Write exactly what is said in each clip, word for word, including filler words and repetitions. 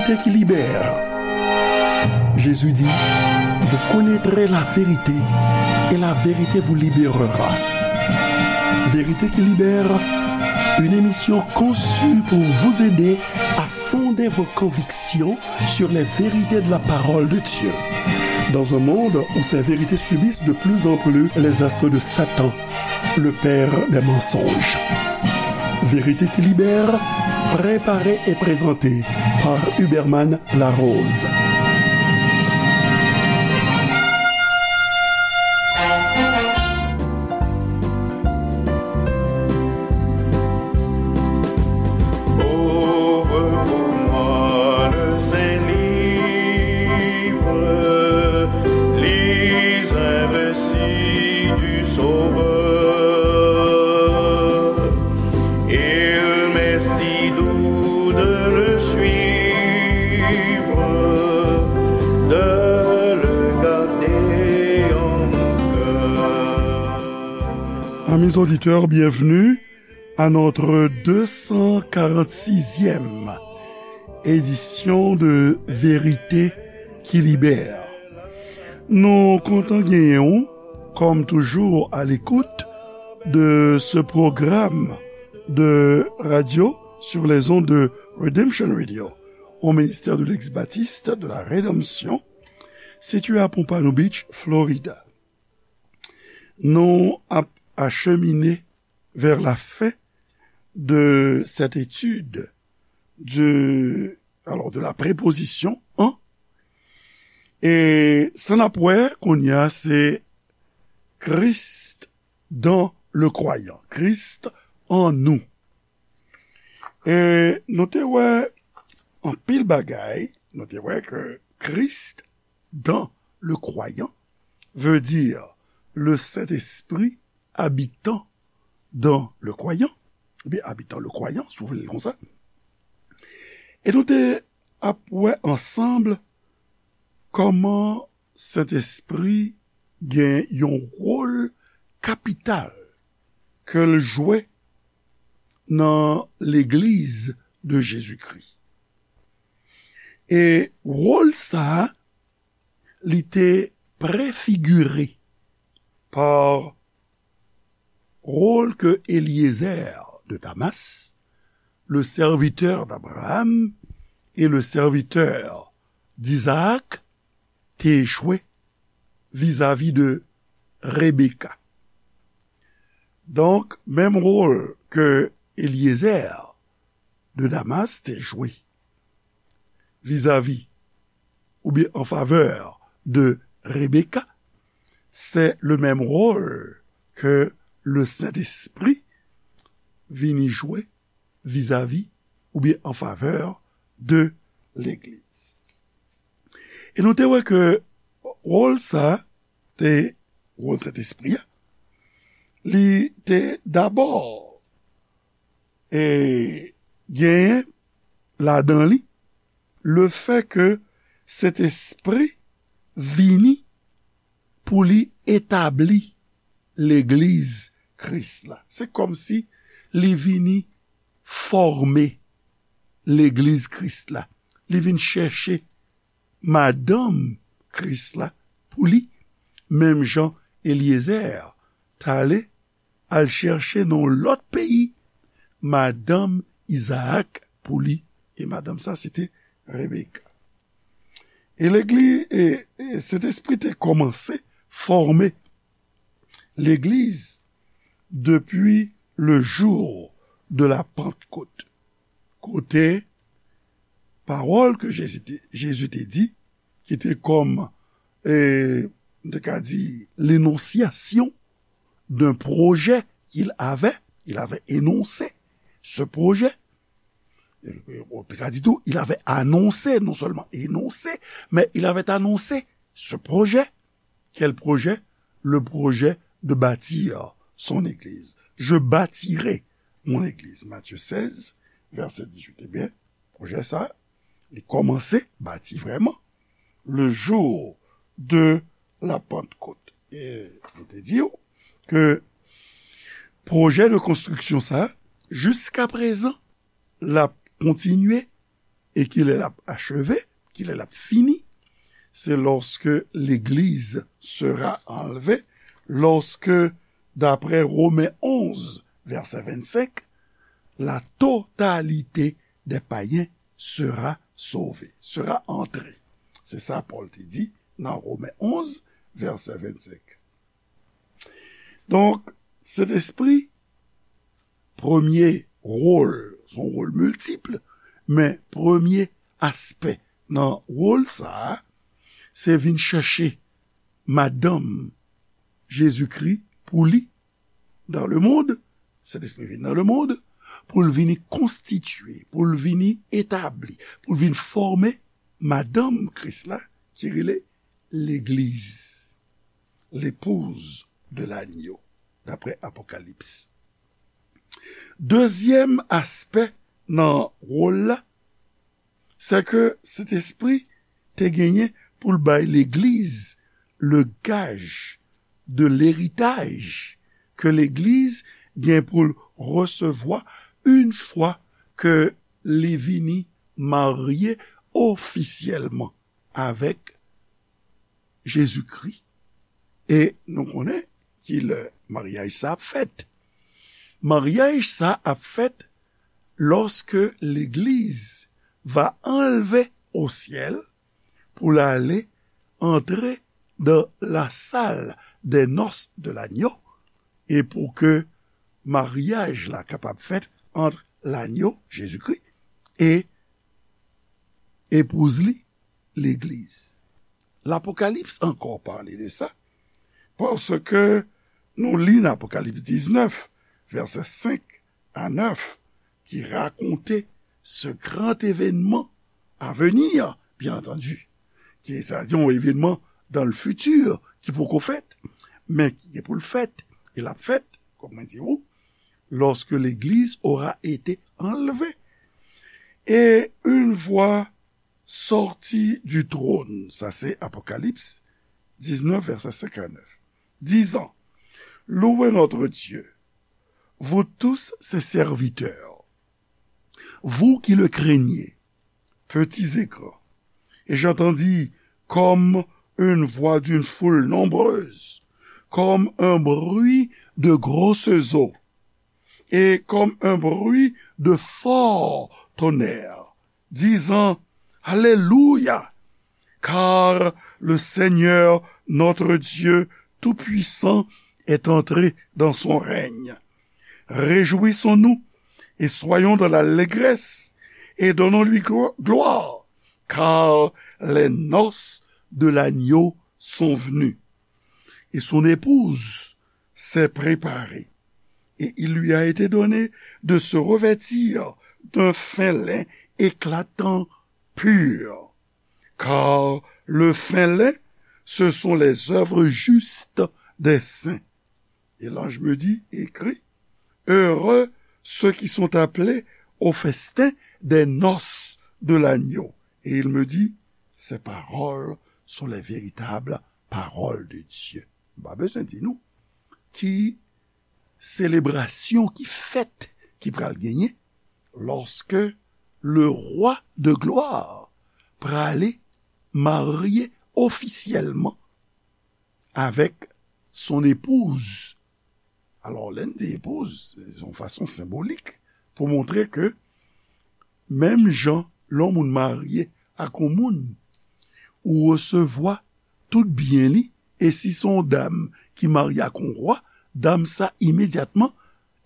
Vérité qui libère. Jésus dit, vous connaîtrez la vérité et la vérité vous libérera. Vérité qui libère, une émission conçue pour vous aider à fonder vos convictions sur les vérités de la parole de Dieu. Dans un monde où ces vérités subissent de plus en plus les assauts de Satan, le père des mensonges. Vérité qui libère, préparée et présentée par Huberman Larose. Ouvre pour moi le Saint-Livre, lis un récit du Sauveur. Il m'est si doux de le suivre, de le garder en mon cœur. Amis auditeurs, bienvenue à notre deux cent quarante-sixième édition de Vérité qui libère. Nou kontan genyen w, comme toujours, à l'écoute de ce programme de radio sur les ondes de Redemption Radio, au ministère de l'ex-baptiste de la Rédemption, situé à Pompano Beach, Florida. Nou ap achemine vers la fin de cette étude de, alors, de la préposition en. E sa n ap wè kounye a, se Christ dans le croyant. Christ en nous. E nou te wè anpil bagay, nou te wè ke Christ dans le croyant veut dire le Saint-Esprit habitant dans le croyant, oubyen habitant le croyant, si w vle l konsa. E nou te ap wè ansanm kòman Sentespri gen yon wòl kapital ke l jwe nan Legliz de Jezikri. E wòl sa a, li te prefigire pa wòl ke Eliezer de Damas, le serviteur d'Abraham et le serviteur d'Isaac, te jwe vizavi de Rebeka. Donk, menm wòl ke Eliezer de Damas te jwe vizavi oubyen an favè de Rebeka, se le menm wòl ke le Sentespri vini jwe vizavi oubyen an favè de Legliz. E nou te wè ke wòl sa a te, wòl Sentespri a, li te dabò, e, genyen ladan li lefè ke Sentespri vini pou li etabli Legliz Kris la. Se kòmsi li vini fòme Legliz Kris la. Li vin chèche madanm Kris la pou li, menm jan Eliezer t ale al chèche nan yon lòt peyi madanm Izaak pou li. E madanm sa, se te Rebeka. E Legliz, e, e Sentespri te kòmanse fòme Legliz depi le jour de la Pentecôte, kote pawòl ke Jezi te, Jezi te di, ki te kòm, e, nou te ka di, l'énonciation d'un projet qu'il avait, il avait énoncé ce projet. On te ka di tou, il avait annoncé, non seulement énoncé, mais il avait annoncé ce projet. Quel projet? Le projet de bâtir son église. Je bâtirai mon église. Matthieu seize, verset dix-huit. Ebyen, pwojè sa, li kòmanse bati vrèman le jour de la Pentecôte. E nou te di w ke pwojè de konstriksyon sa, jiska prezan, l ap kontinye E kilè l ap acheve, kilè l ap fini? Se lorsque l'Église sera enlevée, lorsque, d'après Romains onze, verset vingt-cinq, la totalité des païens sera sauvée, sera entrée. Se sa Pòl te di nan Romen onz, vèsè vennsenk. Donk, Sentespri, premye wòl, se yon wòl miltip, men premye aspè nan wòl sa a, se vin chèche madanm Jezikri pou li dans le monde, Sentespri vin nan lemonn, pou l vini konstitye, pou l vini etabli, pou l vin fòme madanm Kris la, ki rele legliz, l'épouse de l'agneau, daprè Apokalips. Dezyèm aspè nan wòl la, se ke Sentespri te genyen pou l bay legliz le gaj de leritaj ke legliz gen pou l resevwa yon fwa ke li vini marye ofisyèlman avèk Jezikri. E nou konnen ki lè maryaj sa ap fèt. Maryaj sa ap fèt lorsque l'Église va enlever au ciel pou l ale antre dans la salle des noces de l'agneau, e pou ke maryaj la kapab fèt ant lanyo, Jezikri, e epouz li, legliz. Lapokalips ankò pale de sa, paske nou li nan Apokalips diznèf, vèsè senk a nèf, ki rakonte ce grand événement à venir, bien entendu, ki sa di yon evènman dans le futur ki poko fèt, men ki gen pou l fèt, e l ap fèt, kòm mwen di ou, lorsque l'Église aura été enlevée. Et une voix sortit du trône, sa se Apokalips diznèf, vèsè senk a nèf, disant, louez notre Dieu, vous tous ses serviteurs, vous qui le craignez, petits et grands. Et j'entendis comme une voix d'une foule nombreuse, comme un bruit de grosses eaux, et comme un bruit de fort tonnerre, disant, Alléluia, car le Seigneur notre Dieu Tout-Puissant est entré dans son règne. Réjouissons-nous et soyons dans l'allégresse et donnons-lui glo- gloire, car les noces de l'agneau sont venues. Et son épouse s'est préparée, et il lui a été donné de se revêtir d'un fin lin éclatant, pur, car le fin lin, ce sont les œuvres justes des saints. Et l'ange me dit, écris, heureux ceux qui sont appelés au festin des noces de l'agneau. Et il me dit, ces paroles sont les véritables paroles de Dieu. M pa bezwen di nou ki selebrasyon, ki fèt ki pral genyen lorsque le roi de gloire prale marye ofisyèlman avèk son epouz. Alò, lè n di epouz, se yon fason senbolik pou montre ke menm jan lè yon moun marye ak yon moun, ou resevwa tout byen li, e si se yon dam ki marye ak yon wa, dam sa imedyatman,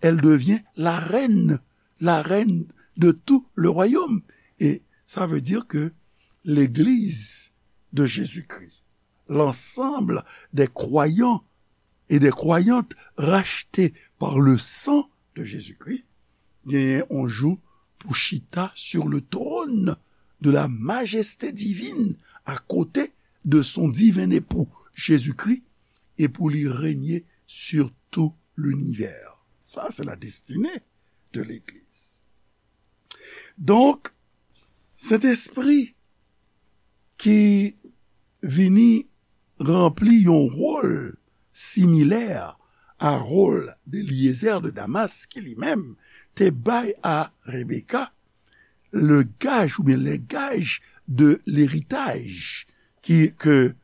elle devient la reine, la reine de tout le royaume. Et ça veut dire que l'Église de Jésus-Christ, l'ensemble des croyants et des croyantes rachetés par le sang de Jésus-Christ, genyen yon jou pou chita sur le trône de la majesté divine, à côté de son divin époux, Jésus-Christ, et pou li règne sur tout l'univers. Sa, se la destinée de l'Église. Donk, Sentespri ki vini ranpli yon wòl similè a wòl de Eliezer de Damas, ki li menm te bay a Rebeka le gage ou bien les gages de l'héritage qui, que,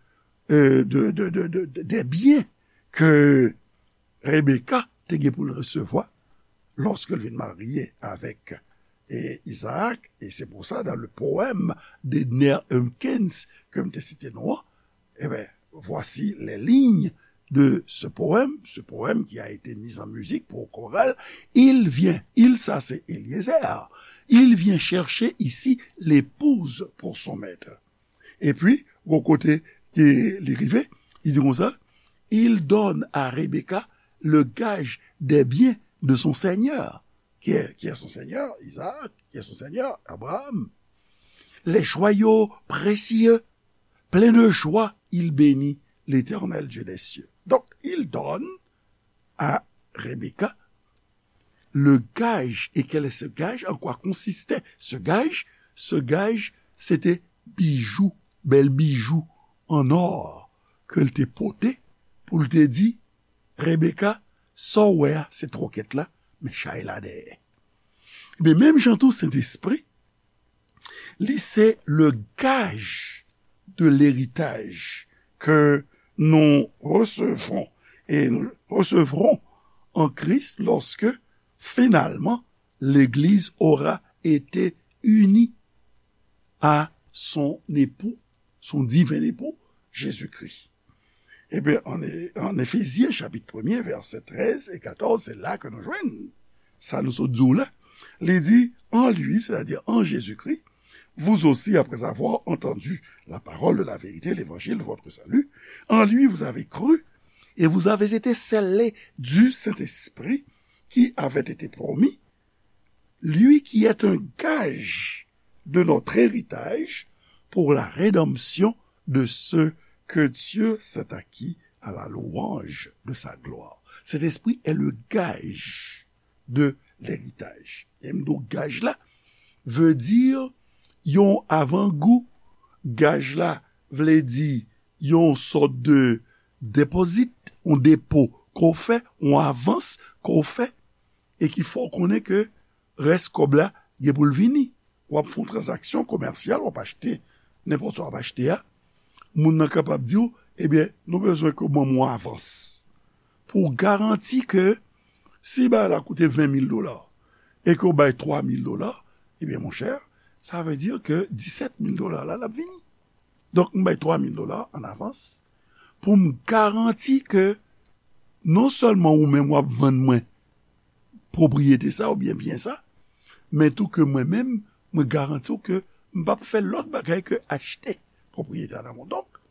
euh, de, de, de, de, de, des biens que Rebecca te gen pou l resevwa lòske l vin marye avèk e Isaac, e se pou sa, dans le poème d'Edner Humpkins ke m te site nou an, eh ben, voici les lignes de ce poème, ce poème qui a été mis en musique pour chorale. Il vient, il, ça c'est Eliezer, il vient chercher ici l'épouse pour son maître. Epi, gwo kote ke li rive, li di konsa, il donne à Rebecca le gage des biens de son seigneur. Qui est, qui est son seigneur? Isaac. Qui est son seigneur? Abraham. Les joyaux précieux, plein de joie, il bénit l'Éternel Dieu des cieux. Donc, il donne à Rebecca le gage. Et quel est ce gage? En quoi consistait ce gage? Ce gage, se te bijou, bèl bijou an or ke l te pote pou l te di, Rebecca, sa w wè a, se twokèt la, men chay la dèyè. Men menm jan tou, Sentespri, li se le gage de l'héritage que nous recevons et nous recevrons en Christ lorsque finalement l'Église aura été unie à son époux, son divin époux, Jésus-Christ. Ebyen, an, an Efezyen, chapit premye, vèsè trèz e katòz, se la ke nou jwenn sa nou sot di w la. Li di, en lui, c'est-à-dire en Jésus-Christ, vous aussi, après avoir entendu la parole de la vérité, l'évangile de votre salut, en lui vous avez cru et vous avez été scellés du Saint-Esprit qui avait été promis, lui qui est un gage de notre héritage pour la rédemption de ceux que Dieu s'est acquis à la louange de sa gloire. Sentespri est le gage de l'héritage. E m di w gaj la vle di yon avangou, gaj la vle di yon sòt de depozit, yon depo ke w fè, yon avans ke w fè, e ki fè w konnen ke rès kòb la gen pou l vini. W ap fè yon tranzaksyon komèsyal, w ap achte nenpòt sa w ap achte a. Moun nan kapab di w, ebyen, nou bezwen ke w ban m yon avans pou w garanti ke si bagay la koute ven mil dola e ke w bay twa mil dola, ebyen, monchè, sa vle di ke disèt mil dola la, l ap vini. Donk, m bay twa mil dola an avans pou m garanti ke non sèlman ou menm w ap vann mwen pwopriyete sa oubyen byen sa, men tou ke mwen menm, mwen garanti w ke m p ap fè lòt bagay ke achte pwopriyete a nan men w. Donk,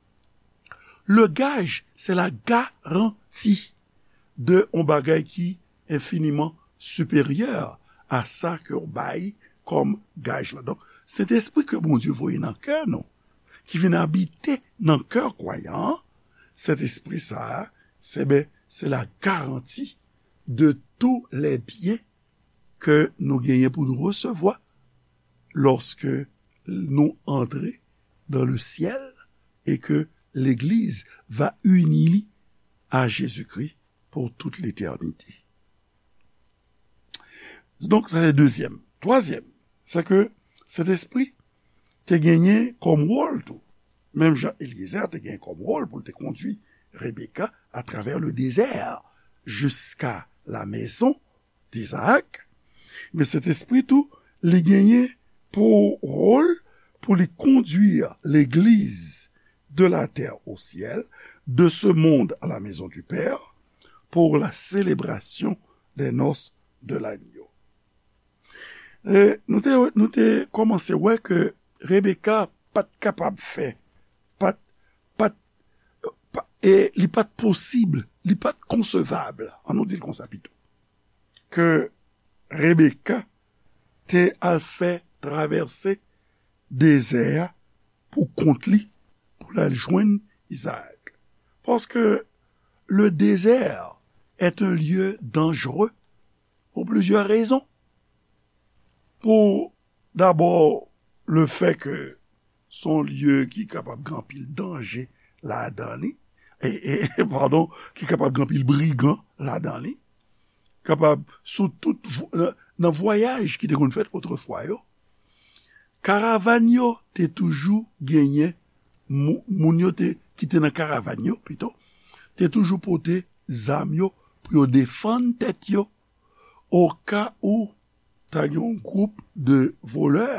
le gage, c'est la garantie de yon bagay ki enfiniman siperyè a sa ke w bay kòm gaj la. Donk, Sentespri ke Bondye voye nan kè nou, ki vin abite nan kè kwayan an, Sentespri sa a, se, ben, se la garanti de tous les biens ke nou genyen pou nou resevwa lòske nou antre dans le ciel et que l'Église va unir à Jésus-Christ pour toute l'éternité. Donk, sa se dezyèm. Twazyèm, se ke Sentespri te genyen kòm wòl tou. Menm jan Eliezer te genyen kòm wòl pou l te kondui Rebecca à travers le désert jusqu'à la maison d'Isaac, men Sentespri tou, li genyen pou wòl pou li kondui legliz de la terre au ciel, de ce monde à la maison du Père, pour la célébration des noces de l'agneau. E nou te, nou te kòmanse wè ke Rebecca pa t kapab fè, pa t, pa t, pa, e li pa t posib, li pa t konsevab, an nou di l konsa pito, ke Rebecca te al fè travèse dezè a pou kont li, pou l al jwenn Isaac. Parce que le désert est un lieu dangereux pour plusieurs raisons. Pou, dabò, le fait que se yon lye ki kapab gen anpil danje ladan li, e, e, padon, ki kapab gen anpil brigan ladan li, kapab sou tout vo-, nan, nan vwayaj ki te konn fèt otrefwa yo, Karavàn yo te toujou genyen, mou- moun yo te, ki te nan karavàn yo, pito, te toujou pote zam yo pou yo defann tèt yo, oka ou ta gen yon gwoup de volè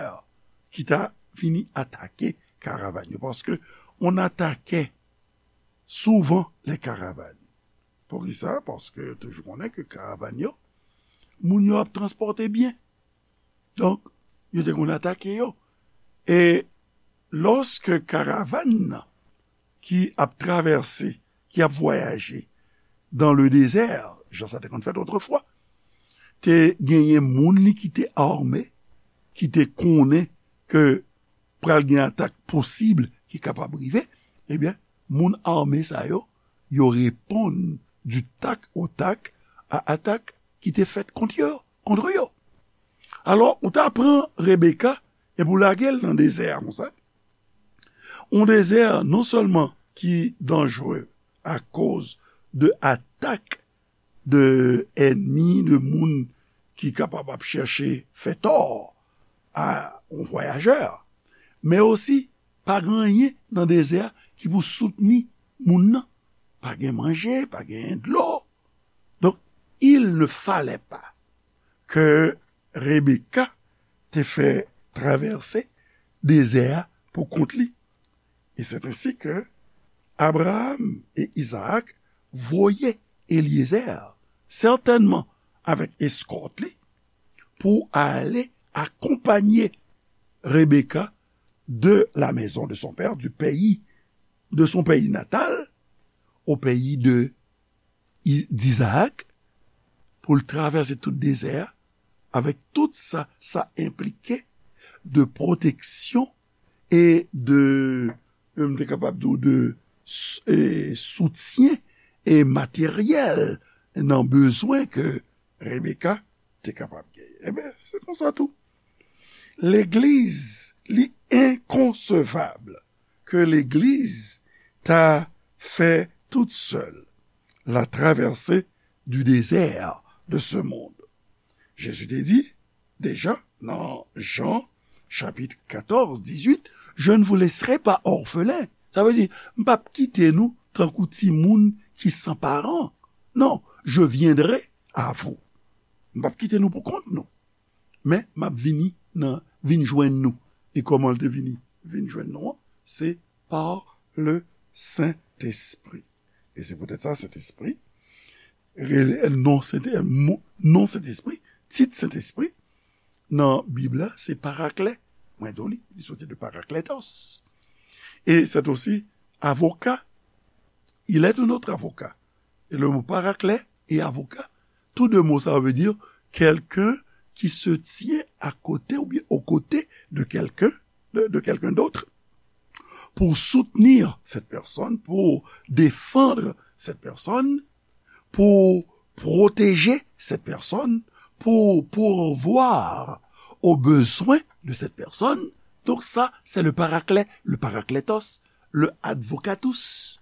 ki ta vini atake karavàn yo. Paske on atake souvan lè karavàn. Poukisa? Paske yo toujou konnen ke karavàn yo, moun yo ap transpòte byen. Donk, yo te konn atake yo. E lòske karavàn nan ki ap travèse, ki ap vwayaje dans le désert, jan sa te konn fèt otrefwa, te genyen moun li ki te ame, ki te konnen ke pral gen atak posib ki kapab rive, ebyen, moun ame sa yo, yo reponn du tac au tac a atak ki te fèt kont yo, kont yo. Alò, ou ta pran Rebeka epi w lage l nan dezè a konsa. On dezè non sèlman ki danjere akoz de atak de ènmi, de moun ki kapab ap chèche fè tò a on vwayajè, men osi pa gen anyen nan dezè a ki pou soutni moun nan. Pa gen manje, pa gen dlo. Donk, il ne fallait pas que Rebecca te fè travèse dezè a pou kont li. Et c'est ainsi que Abraham et Isaac voyaient Eliezer, certainement avec escort li, pou ale akonpanye Rebecca de la maison de son père, du pays, de son pays natal, au pays de, d'Isaac, pou l travèse tout dezè a, avèk tout sa sa enplike de pwoteksyon e de, m te kapab di w, de s- e soutyen e materyèl nan bezwen ke Rebecca te kapab genyen. Ebyen, se konsa tou. Legliz, li enkonsevab ke legliz ta fè tout sèl la traversée du désert de ce monde. Jezi te di deja nan Jan chapit katòz, dizuit, je ne vous laisserai pas orphelins. Sa vle di, m p ap kite nou tankou timoun ki san paran. Non, je viendrai à vous. M p ap kite nou pou kont nou. Men m ap vini nan, vin jwenn nou. E kòman l te vini, vin jwenn nou an? Se par le Saint-Esprit. E se poutèt sa, Sentespri, rele, non, Sent, mo- non Sentespri, tit Sentespri, nan Bib la, se Paraklè. Mwen di w li, li soti de Parakletos. Et c'est aussi avocat. Il est un autre avocat. Et le mot Paraklè et avocat, tous deux mots, ça veut dire quelqu'un qui se tient à côté ou bien aux côtés de quelqu'un, de, de quelqu'un d'autre, pour soutenir cette personne, pour défendre cette personne, pour protéger cette personne, pour pourvoir aux besoins de cette personne. Donc ça, c'est le Paraklè, le Parakletos, le Advocatus.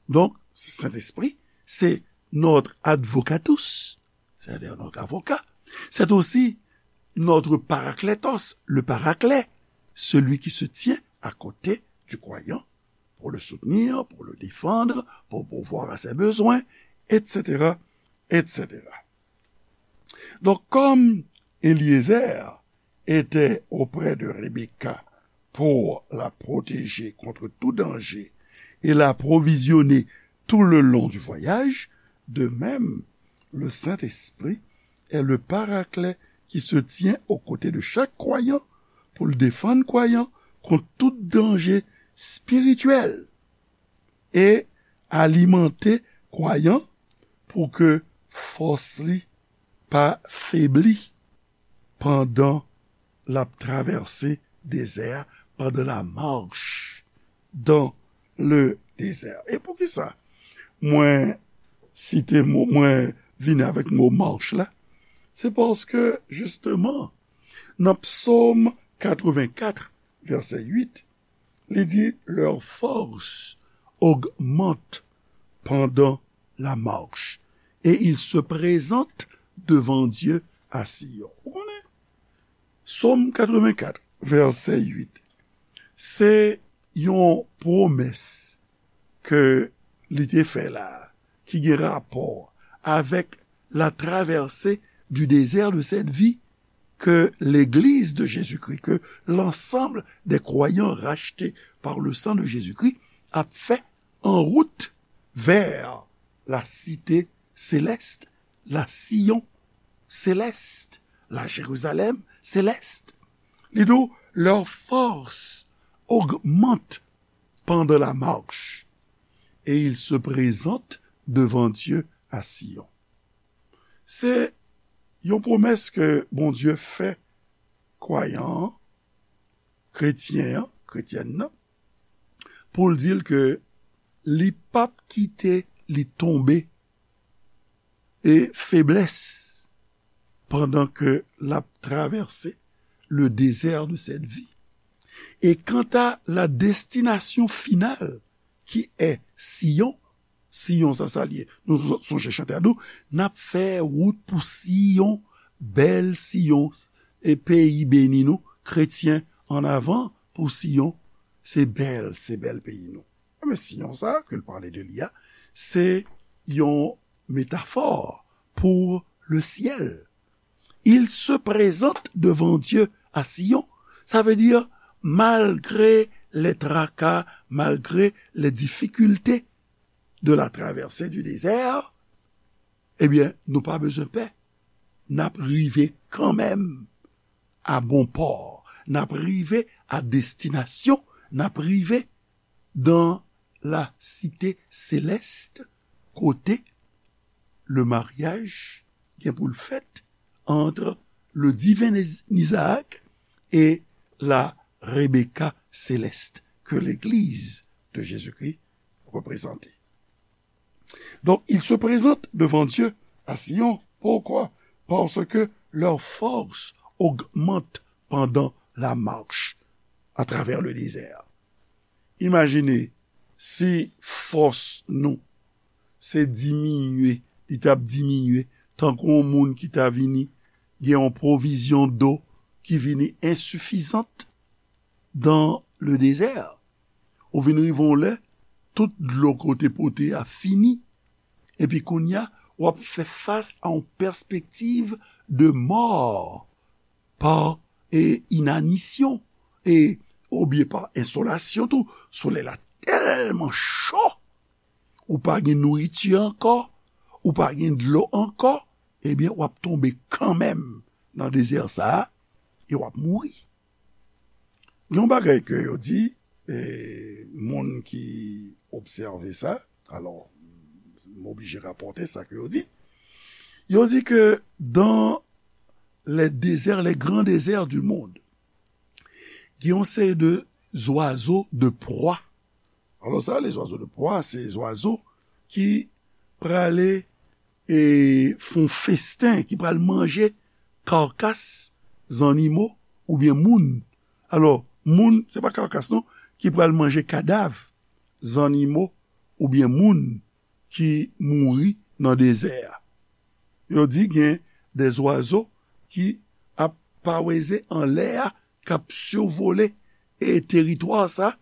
Donc, Saint-Esprit, c'est notre Advocatus, c'est-à-dire notre avocat. C'est aussi notre Parakletos, le Paraclet, celui qui se tient à côté du croyant pour le soutenir, pour le défendre, pour pourvoir à ses besoins, et cetera, et cetera. Donc, comme Eliezer était auprès de Rebecca pour la protéger contre tout danger et l'approvisionner tout le long du voyage, de même, le Saint-Esprit est le Paraclet qui se tient aux côtés de chaque croyant pour le défendre croyant contre tout danger spirituel et alimenter croyant pour que force li pa febli pandan l ap travèse dezè a, pendant la marche dans le désert. E poukisa mwen site mo, mwen vini avèk mo march la? Se paske, jisteman, nan Psaume quatre-vingt-quatre, verset huit, li di, leur force augmente pendant la marche, et ils se présentent devant Dieu à Sion. Ou konnen? Sòm katrevennkat, vèsè uit. Se yon pwomès ke li te fè la, ki gen rapò avèk la traversée du désert de cette vie que l'Église de Jésus-Christ, que l'ensemble des croyants rachetés par le sang de Jésus-Christ ap fè en route vers la cité céleste, la Sion céleste, la Jérusalem céleste. Li di w, leur force augmente pendant la marche, et ils se présentent devant Dieu à Sion. Se yon pwomès ke Bondye fè kwayan an, kretyen an, kretyèn nan, pou l di l ke li p ap kite li tonbe e feblès pandan ke l ap travèse le désert de cette vie. Et quant à la destination finale, qui est Sion, Siyon sa, sa l ye. Nou sonje chante a nou, n ap fè wout pou Siyon, bèl Siyon, e peyi beni nou, kretyen, ann avan pou Siyon, se bèl, se bèl peyi nou. Men Siyon sa ke l pale de li a, se yon metafò pour le ciel. Il se présente devant Dieu à Sion. Sa vle di, malgre les tracas, malgre les difficultés de la traversée du désert, ebyen, nou pa bezwen pè. N ap rive kanmenm a bon pò. N ap rive a destinasyon. N ap rive dans la cité céleste, kote le mariage gen pou l fèt entre le divin Isaac et la Rebecca céleste que l'Église de Jésus-Christ représente. Donc, ils se présentent devant Dieu à Sion. Pourquoi? Parce que leur force augmente pendant la marche à travers le désert. Imajine si fòs nou se diminye, li t ap diminye, tankou yon moun ki ta vini gen yon pwovizyon do ki vini ensifizant dans le désert. Ou vin rive yon lè, tout dlo ke w te pote a fini. Epi kounye a, w ap fè fas a yon pèspektiv de mò pa e, inanisyon, e, oubyen pa ensolasyon tou. Solèy la tèlman cho, ou pa gen nouriti ankò, ou pa gen dlo ankò, ebyen, w ap tonbe kanmenm nan dezè sa a, e w ap mouri. Gen yon bagay ke yo di, e, moun ki obsève sa, alò, m oblije rapòte sa ke yo di. Yo di ke dans les déserts, les grands déserts du monde, gen yon seri de zwazo de pwa. Alò, sa, les oiseaux de proie, se zwazo ki prale e fè yon festen, ki pral manje kakas zannimo oubyen moun. Alò, moun, se pa kakas non, ki pral manje kadav zannimo oubyen moun ki mouri nan dezè a. Yo di gen de zwazo ki ap paweze anlè a, k ap sivole e teritwa sa,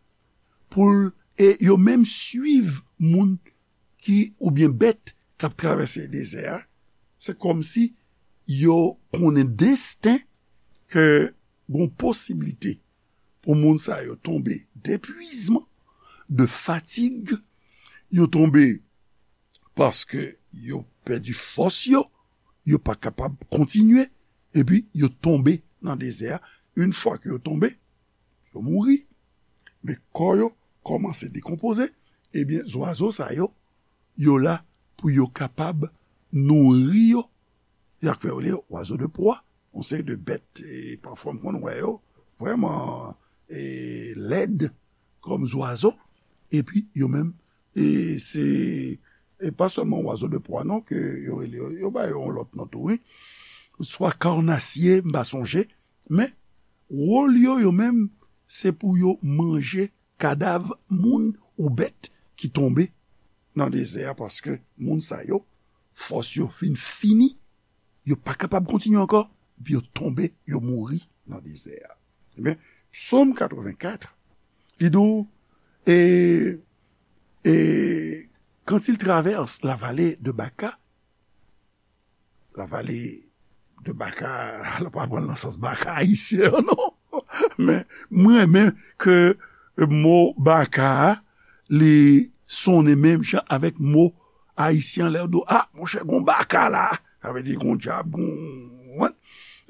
pou l, e yo menm swiv moun ki, oubyen bèt k ap travèse dezè a. Se kòmsi yo konnen desten ke gon posiblite pou moun sa yo tonbe depwizman, de fatig, yo tonbe paske yo pèdi fòs yo, yo pa kapab kontinye, epi yo tonbe nan dezè a. Yon fwa ke yo tonbe, yo mouri. Men kò yo kòmanse dekonpoze, ebyen, zwazo sa yo, yo la pou yo kapab nouri yo. Se sa k fè yo rele oiseaux de proie, yon seri de bèt, e pafwa m konn wè yo vrèman, e, lèd kòm zwazo, epi yo menm, e se, e pa sèlman oiseaux de proie non, ke yo rele yo, yo ba yo yon lòt non tou, wi. Swa karnasye, m pa sonje, men wòl yo, yo menm, se pou yo manje kadav moun ou bèt ki tonbe nan dezè a, paske moun sa yo, fòs yo fin fini, yo pa kapab kontinye ankò, epi yo tonbe, yo mouri nan dezè a. Ebyen, Psaume quatre-vingt-quatre, li di w, et, et quand il traverse la vallée de Baca, la vallée de Baca, la pa pran nan sans Baca ayisyen an, non. Men mwen renmen ke mo Baca a, li sonnen menm jan avèk mo ayisyen lè yo di, ah, monchè, gon Baca la. Sa vle di gon dyab, gon,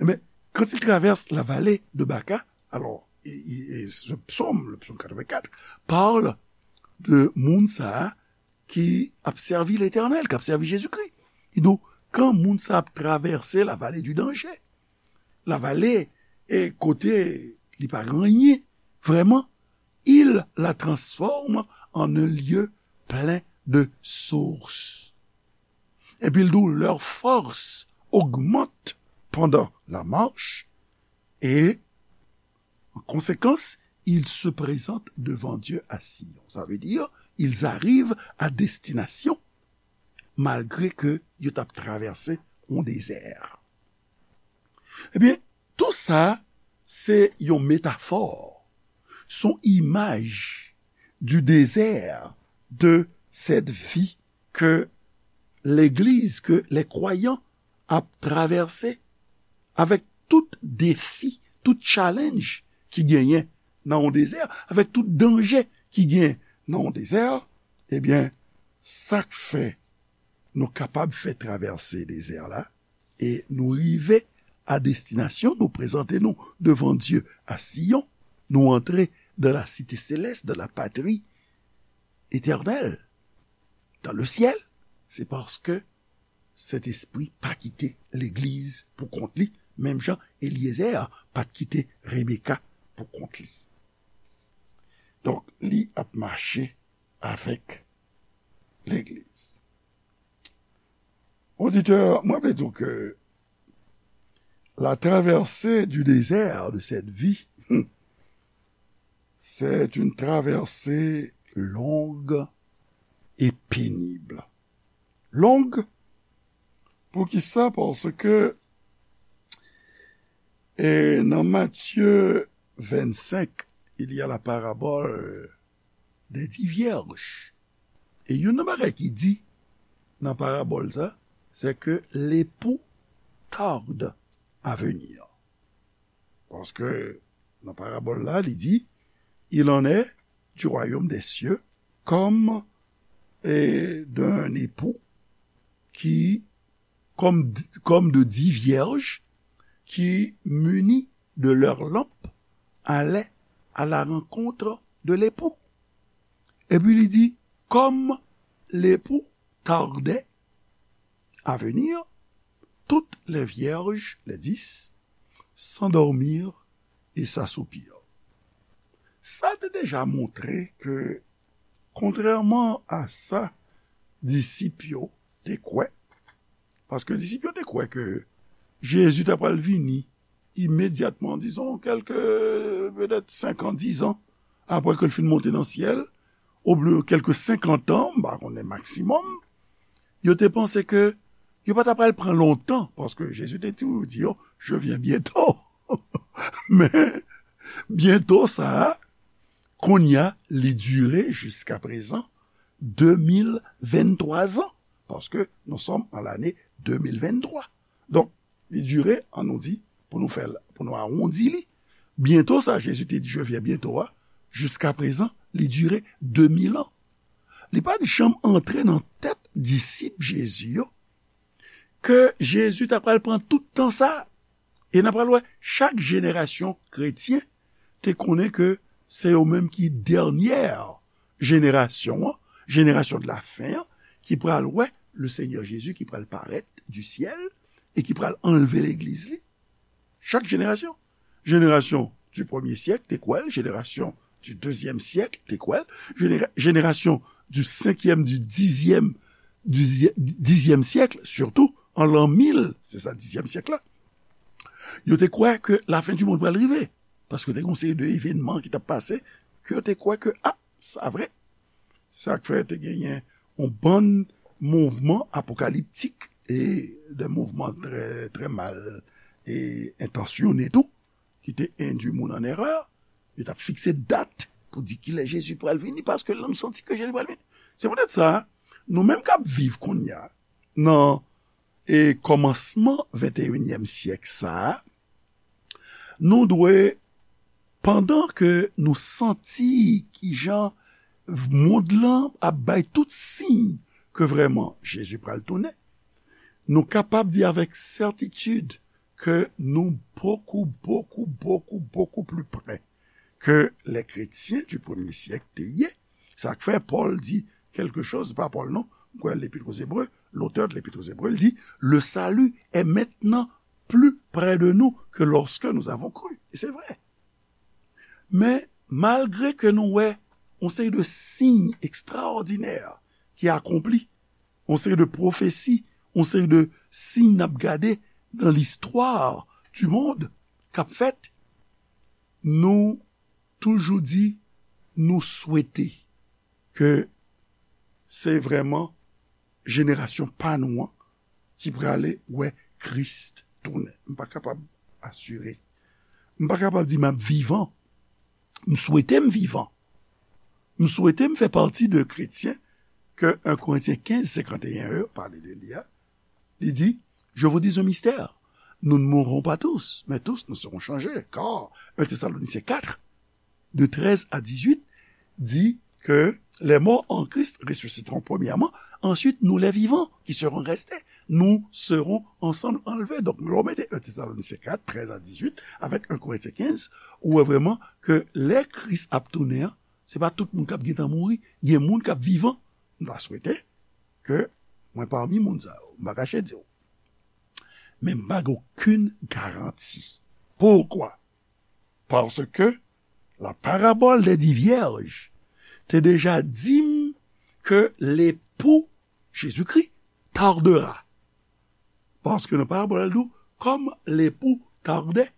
men quand il traverse la vallée de Baca, alors, et, et, et ce psaume, le psaume quatre-vingt-quatre, parle de moun sa a ki ap sèvi Letènèl, k ap sèvi Jezikri. Kidonk, kan moun sa ap travèse la vallée du danger, la vallée e kote li pa gen anyen, vrèman, il la transforme en un lieu plein de sources. Epi l di w, leur force augmente pendant la marche et en conséquence, ils se présentent devant Dieu à Sion. Ça veut dire, ils arrivent à destination malgré que yo t ap travèse yon dezè. Ebyen, tou sa, se yon metafò, se yon imaj du désert de cette vie ke legliz, ke les croyants ap travèse avèk tout defi, tout challenge ki genyen nan yon dezè, avèk tout danje ki genyen nan yon dezè, ebyen, sa k fè nou kapab fè travèse dezè la, e nou rive a destinasyon, nou prezante nou devan Dye a Siyon, nou antre dans la cité céleste, dans la patrie éternelle, dans le ciel, se paske Sentespri pa kite legliz pou kont li, menm jan Elyezè pa t kite Rebeka pou kont li. Donk, li ap mache avèk legliz. Oditè, mwen vle di w ke la traversée du désert de cette vie, c'est une traversée longue et pénible. Longue, poukisa? Paske, e, nan Matye vennsenk, il y a la parabole des dix vierges. E youn nan bagay ki di nan parabòl sa, c'est que l'époux tarde à venir. Paske nan parabòl la, li di, il en est du royaume des cieux comme, et d'un époux qui, comme, comme de dix vierges qui, munies de leurs lampes, allaient à la rencontre de l'époux. Epi li di, comme l'époux tardait à venir, toutes les vierges, les dix, s'endormirent et s'assoupirent. Sa te deja montre ke, kontrèman a sa disip yo te kwè, paske disip yo te kwè ke Jezi ta pral vini imedyatman, dizon, kèlke, petèt senk an, diz an, apre ke l fin monte nan syèl, oubyen kèlke senkant an, m pa konnen, maksimòm, yo te panse ke yo pa ta pral pran lontan, paske Jezi te toujou di yo, je viens bientôt. Men, byento sa a, kounye a, li dire jiska prezan de mil venntwa zan, paske nous sommes en l'année deux mille vingt-trois. Donk, li dire, an nou di, pou nou fè l, pou nou awondi li, byento sa, Jezi te di, je viens bientôt a, jiska prezan, li dire de mil an. Li pa t janm antre nan tèt disip Jezi yo ke Jezi ta pral pran tout tan sa. E n a pral wè, chak jenerasyon kretyen te konnen ke se yo menm ki dènyè jenerasyon an, jenerasyon de la fen an, ki pral wè le Seigneur Jésus ki pral parèt du ciel e ki pral anlve legliz li. Chak jenerasyon. Jenerasyon du premier siècle te kwè l, jenerasyon du deuxième siècle te kwè l, jenera-, jenerasyon du cinquième, du dixième, du dixième siècle, surtout, an l'an mil, se sa, dizyèm syèk la, yo te kwè ke lafen di mond pral rive. Paske te gen yon seri de evènman ki t ap pase, ke yo te kwè ke, a, sa vre. Sa k fè te genyen yon bann mouvman apokaliptik e de mouvman trè, trè mal e entansyone tou, ki te endwi moun an erè. Yo t ap fikse dat pou di kilè Jezi pral vini, paske nou santi ke Jezi pral vini. Se poutèt sa, nou menm k ap viv kounye a, nan e kòmansman venteyinyèm syèk sa a, nou dwe, pandan ke nou santi kijan mond lan ap bay tout siy ke vrèman Jezi pral tounen, nou kapab di avèk sètitid ke nou bokou, bokou, bokou, bokou pli pre ke lè kretyen di premye syèk te ye. Sa k fè Pòl di kèlke choz, pa Pòl non, m kwè Lepître aux Hébreux, l'auteur de l'Épître aux Hébreux, il dit, le salut est maintenant plus près de nous que lorsque nous avons cru. E se vre. Men, malgre ke nou wè yon seri de siy ekstraòdinè ki akonpli, yon seri de pwofesi, yon seri de siy n ap gade nan listwa du monde k ap fèt, nou toujou di nou swete ke se vrèman jenerasyon pa nou an ki prale wè Kris tounen. M pa kapab asire. M pa kapab di m ap vivan. M swete m vivan. M swete m fè pati de kretyen ke en Korentyen kenz senkanteyen yo pale de li a. Li di, je vous dis un mystère. Nous ne mourrons pas tous, mais tous nous serons changés. Car un Thessaloniciens quatre, de treize à dix-huit, dit que les morts en Christ ressusciteront premièrement, ensuite nous les vivants qui serons restés, nous serons ensemble enlevés. Donk, lè w mete un Thessaloniciens quatre, treize à dix-huit, avèk en Korentyen kenz, ou wè vrèman ke lè Kris ap tounen an, se pa tout moun k ap gentan mouri, gen moun k ap vivan. M ta swete ke mwen pami moun sa yo. M pa kache di w. Men m pa gen okenn garanti. Poukwa? Paske la parabòl dè di vyèj te deja di m ke lepou Jezikri tardera. Paske nan parabòl la, l di w, comme l'époux tardait,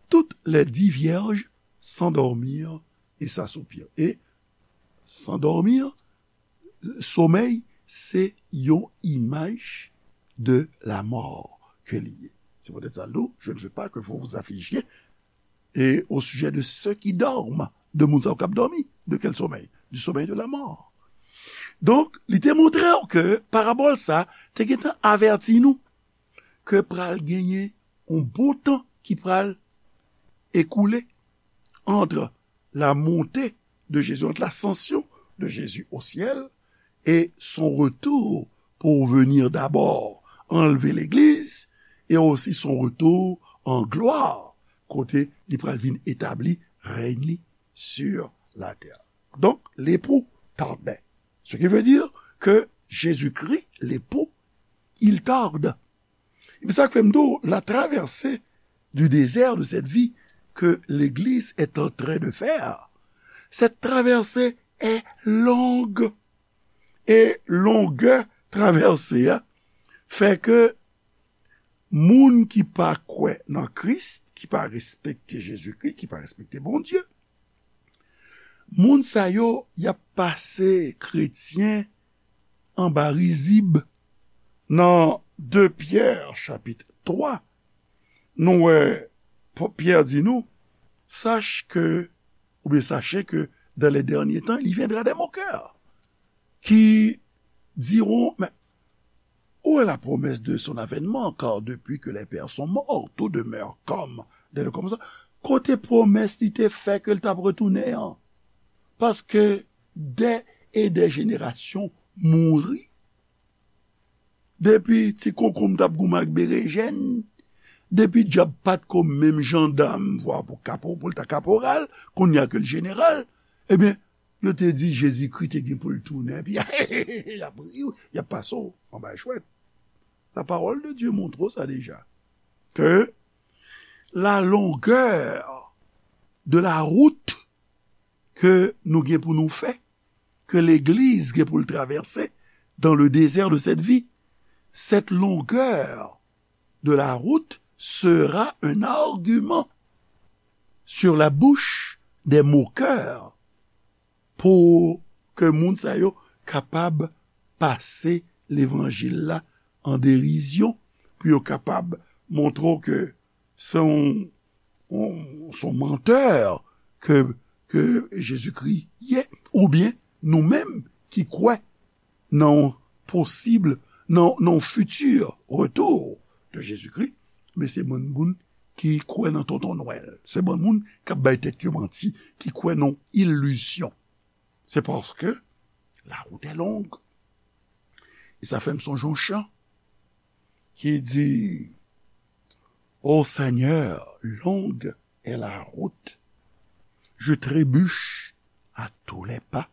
toutes les dix vierges s'endormirent et s'assoupirent. Et s'endormir, somèy, se yon imaj de la mort ke li ye. Se poutèt sa, l di w, je ne veux pas que vous vous affligiez et au sujet de ceux qui dorment, de moun sa yo k ap dòmi. De quel sommeil? Du sommeil de la mort. Donk, li te montre w ke parabòl sa te gentan avèti nou ke pral genyen yon bon tan ki pral ekoule entre la montée de Jésus, entre l'ascension de Jésus au ciel et son retour pour venir d'abord enlever l'église, et aussi son retour en gloire, kote li pral vin etabli rèy li sur la terre. Donc, l'époux tardait. Ce qui veut dire que Jésus-Christ, l'époux, il tarde. Epi sa k fè m di w, la traversée du désert de cette vie que l'Église est en train de faire, cette traversée est longue. E longè travèse a fè ke moun ki pa kwè nan Kris, ki pa respekte Jezikri, ki pa respekte Bondye, moun sa yo, y ap pase kretyen anba rizib. Nan de Pyè chapit twa, nou wè P-, Pyè di nou, sache que, ou bien sachez que dans les derniers temps, il viendra des moqueurs qui diront, mais où est la promesse de son avènement? Car depuis que les pères sont morts, tout demeure comme dans le commencement. Kote pwomès li te fè ke l t ap retounen an? Paske dè e dè jenerasyon mouri. Depi ti konkonm t ap goumen ak berejèn, depi dyab pa t ko menm jandam, vwa pou kapo-, pou l ta kaporal, kounye a ke l jeneral, ebyen, yo te di Jezikri te gen pou l tounen, epi y ap ri w, y ap pase w anba chwèt. La parole de Dieu montre w sa deja, ke la longueur de la route ke nou gen pou nou fè, ke legliz gen pou l travèse dans le désert de cette vie, cette longueur de la route sera un argument sur la bouche des moqueurs, pou ke moun sa yo kapab pase levanjil la an derizyon, pou yo kapab montre w ke se yon, yon, se yon mantè ke ke Jezikri ye, oubyen nou menm ki kwè nan yon posib, nan, nan yon fiti retou de Jezikri, men se bann moun ki kwè nan tonton Nwèl. Se bann moun k ap bay tèt yo manti, ki kwè nan ilizyon. Se paske la wout è long. E sa fè m sonje yon chan ki di, Ô Seigneur, longue est la route, je trébuche à tous les pas.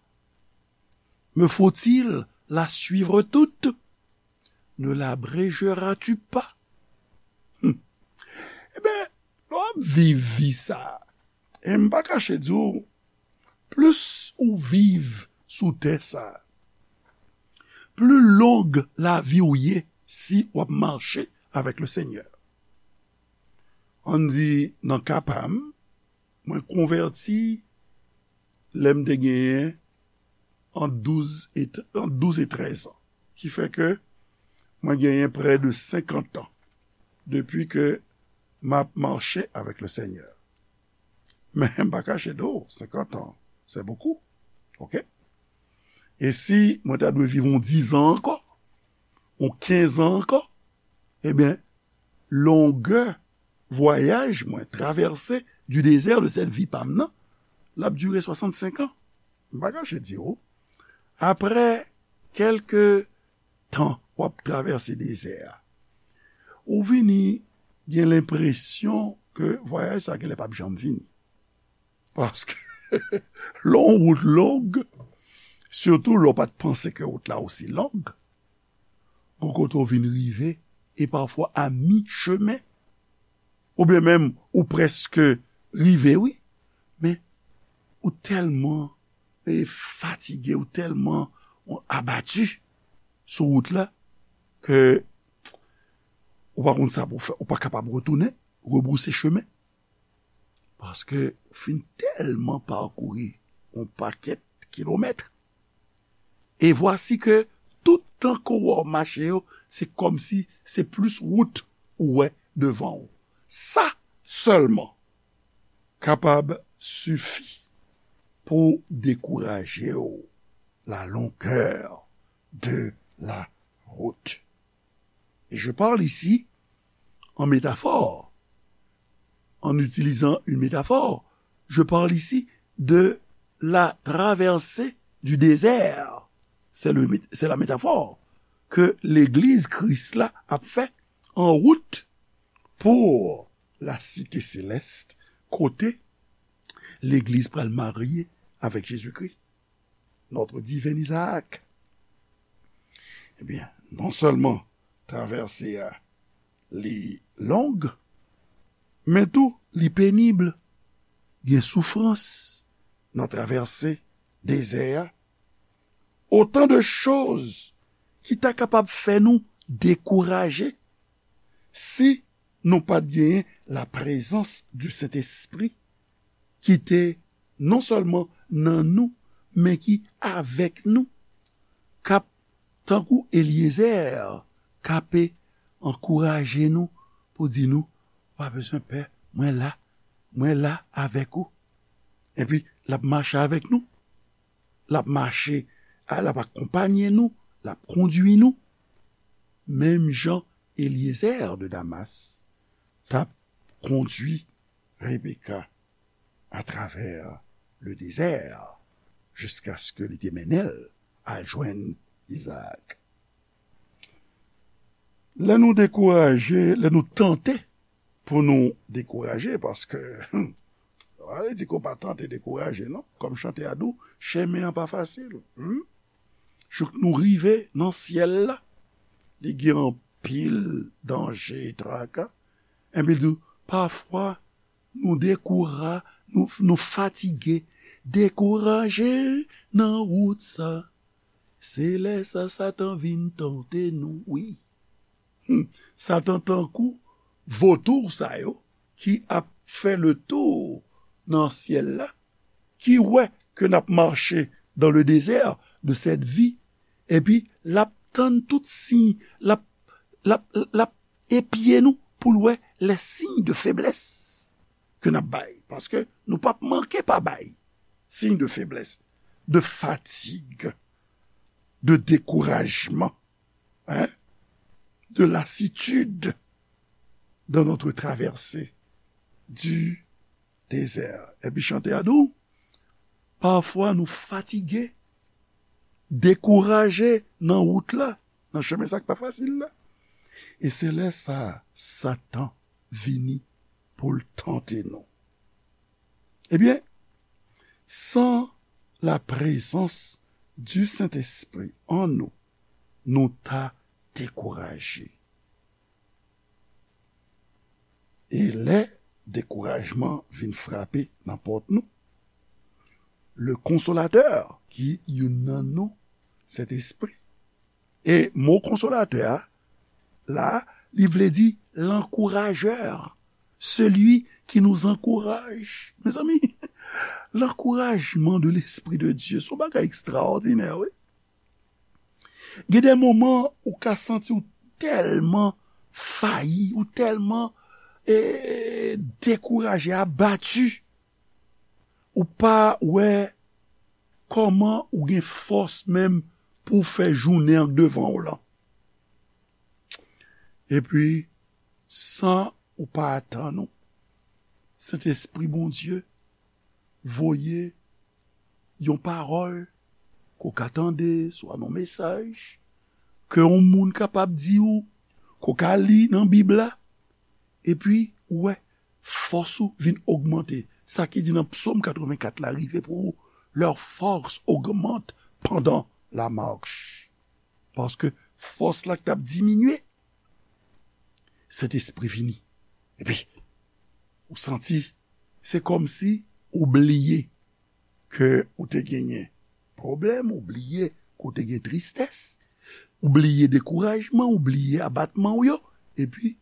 Me faut-il la suivre toute? Ne l'abrégeras-tu pas? Hmm. Ebyen, lè w ap viv vi sa a, e m pa kache di w, plis ou viv sou tè sa a, pli long lavi w ye si w ap mache avèk le Senyè. Ann di, nan ka pa m, mwen konvèti lè m te genyen ant douz e, ant douz e trèz an. Ki fè ke mwen genyen prè de senkant an depi ke m ap mache avèk le Senyè. Men m pa kache di w, senkant an, c'est beaucoup. Oke? E si mwen ta dwe viv yon diz an ankò, yon kenz an ankò, ebyen, longè vwayaj mwen, traversée du désert de cette vie pa m nan, l ap dire swasannsenk an. M pa kache di w, apre kèlke tan w ap travèse dezè a, ou vini gen lenpresyon ke vwayaj sa a genlè p ap janm fini. Paske lè yon wout long, sitou lè w pa t panse ke wout la osi long, gon kote w vin rive, e pafwa a mi chemen, oubyen menm ou prèske rive, wi, men ou tèlman, e, fatige, ou tèlman abati sou wout la, ke ou pa konn sa pou w fè, ou pa kapab retounen, rebrouse chemen. Paske ou fin tèlman pakouri yon pakèt kilomèt. E vwasi ke tout tan ke w wè w mache yo, se kòmsi se plis wout ou wè devan w. Sa sèlman kapab sifi pou dekouraje w, la longueur de la route. Et je parle ici en métaphore, en utilisant une métaphore. Je parle ici de la traversée du désert. C'est le, c'est la métaphore ke legliz Kris la ap fè an wout pou la site selès, kote legliz pral marye avèk Jezikri, notre divin Isaac. Ebyen, non sèlman travèse a li long, men tou li penib. Gen soufrans nan travèse dezè a. Otan de choz ki ta kapab fè nou dekouraje si nou pa t genyen la présence du Saint-Esprit ki te non sèlman nan nou, men ki avèk nou, k ap, tankou Elyezè, k ape ankouraje nou pou di nou, pa bezwen pè, mwen la, mwen la avèk ou. Epi, l ap mache avèk nou. L ap mache, a, l ap akonpanye nou, l ap kondui nou. Menm jan Elyezè de Damas t ap kondui Rebeka atravè le dezè, jiskaske li te mennen l al jwenn Izaak. Lè nou dekouraje, lè nou tante pou nou dekouraje, paske, pa vle di ke w pa tante dekouraje, non. Kòm chante a di w, chemen an pa fasil. Hmm? Jouk nou rive nan syèl la, li gen anpil danje e traka. Enben, l di w, pafwa, nou dekoura-, nou, nou fatige, dekouraje nan wout sa. Se lè sa Satan vin tante nou, wi. Hmm. Satan tankou votou sa yo ki ap fè le tour nan syèl la, ki wè ke n ap mache dans le désert de cette vie, epi l ap tann tout siy, l ap, l ap, l ap epye nou pou l wè les signes de faiblesse ke n ap bay, paske nou p ap manke pa bay. signe de faiblesse, de fatigue, de découragement, hein, de lassitude dans notre traversée du désert. Epi chante a di w, pafwa nou fatige, dekouraje nan wout la, nan chemen sa k pa fasil la. E se lè sa a, Satan vini pou l tante nou. Ebyen, sans la présence du Saint-Esprit en nous, nou ta dekouraje. E lè dekourajman vin frape nan pòt nou, le Consolateur, ki youn nan non Sentespri, e mo konsolatè a, la, li vle di l'encourageur, celui qui nous encourage. Mezanmi, l'encouragement de l'Esprit de Dieu, se yon bagay ekstraòdinè, wi. Gen de moman ou ka santi w tèlman fayi, ou tèlman eh, dekouraje, abati, ou pa wè kòman ou gen fòs menm pou w fè jounen an k devan w lan. Epi, san ou pa atann ou, Sentespri Bondye voye yon pawòl ke w ka tande, swa nan mesaj, ke yon moun kapab di w, ke w ka li nan Bib la, epi ou wè fòs ou vin ogmante. Sa ki di nan Psaume quatre-vingt-quatre la rive pou ou, leur force augmente pendant la marche. Paske fòs la k t ap diminye, Sentespri vini. Epi, ou santi, se kòmsi ou bliye ke ou te genyen pwoblèm, ou bliye ke w te gen tristès, ou bliye dekourajman, ou bliye abatman w yo, epi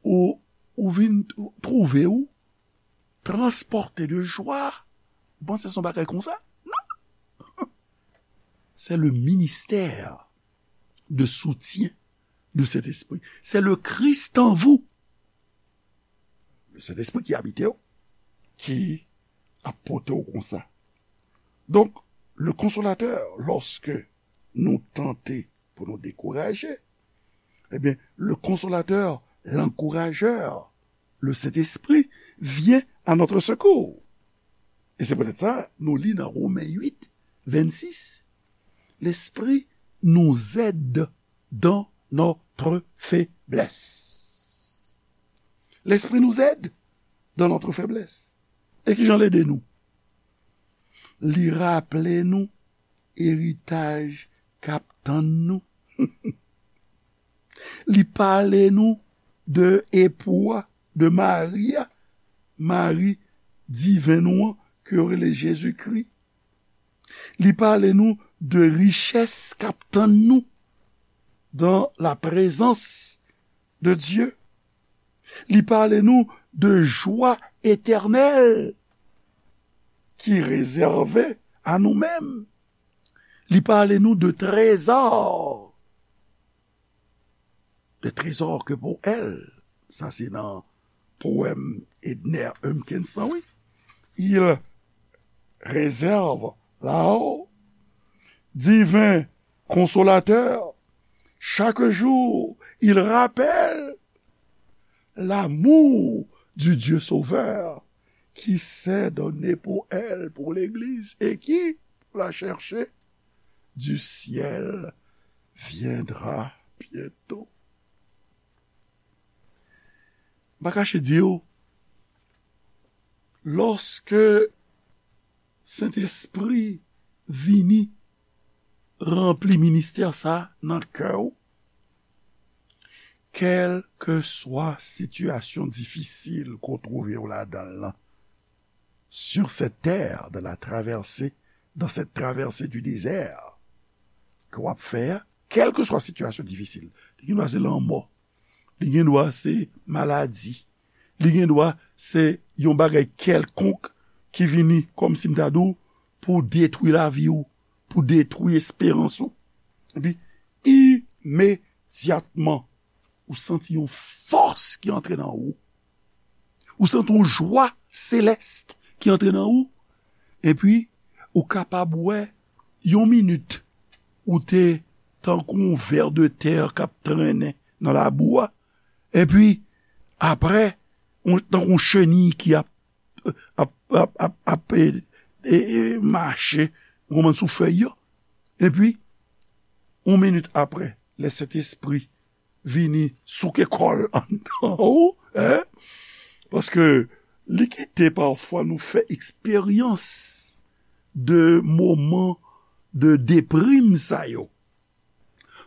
ou, ou vin twouve w transpòte de jwa. Ou panse se yon bagay konsa? Non! C'est le ministère de soutien du Saint-Esprit. C'est le Christ en vous, le Saint-Esprit qui habite w, ki ap pote w konsa. Donk, le Consolateur, lòske nou tante pou nou dekouraje, ebyen, le Consolateur, l'encourageur, le Saint-Esprit vient à notre secours. Et c'est peut-être ça, nou li nan Romen uit, vennsis, l'Esprit nous aide dans notre faiblesse. L'Esprit nous aide dans notre faiblesse. E kijan l ede nou? Li raple nou eritaj k ap tann nou. Li pale nou de epou a, de mari a, mari diven nou an, ke yo rele Jezikri. Li pale nou de richès k ap tann nou dans la présence de Dieu. Li pale nou de jwa etènèl ki rezève a nou menm. Li pale nou de trezò, de trezò ke pou èl, sa se nan powèm Edner Humpkins lan, wi. Il réserve là-haut, divin consolateur, chaque jour, il rappelle l'amour du Dieu Sauveur qui s'est donné pour elle, pour l'Église, et qui, pour la chercher, du ciel viendra bientôt. M pa kache di w, lòske Sentespri vini ranpli ministè sa nan kè w, kèlkeswa sitiyasyon difisil ke w twouve w ladan l lan, sur cette terre, dans la traversée, dans cette traversée du désert ke w ap fè a, kèlkeswa sitiyasyon difisil, li gen dwa se lanmò, li gen dwa se maladi, li gen dwa se yon bagay kèlkonk ki vini kòmsi m ta di w pou detwi lavi w, pou detwi esperans ou. Epi, imedyatman, ou santi yon fòs ki antre nan ou. Ou santi yon jwa selès ki antre nan ou. Epi, ou kapab wè yon minit, ou te tankou yon vè de tè k ap trennen nan labou a. Epi, apre, yon, tankou yon cheni ki ap, ap, ap, ap, ap, e, e, e, mache, ou konprann, sou fèy yo. Epi, yon minit apre, lè Sentespri vini souke kò l anndan ou, en? Paske li kite pafwa nou fè eksperyans de moman de deprim sa yo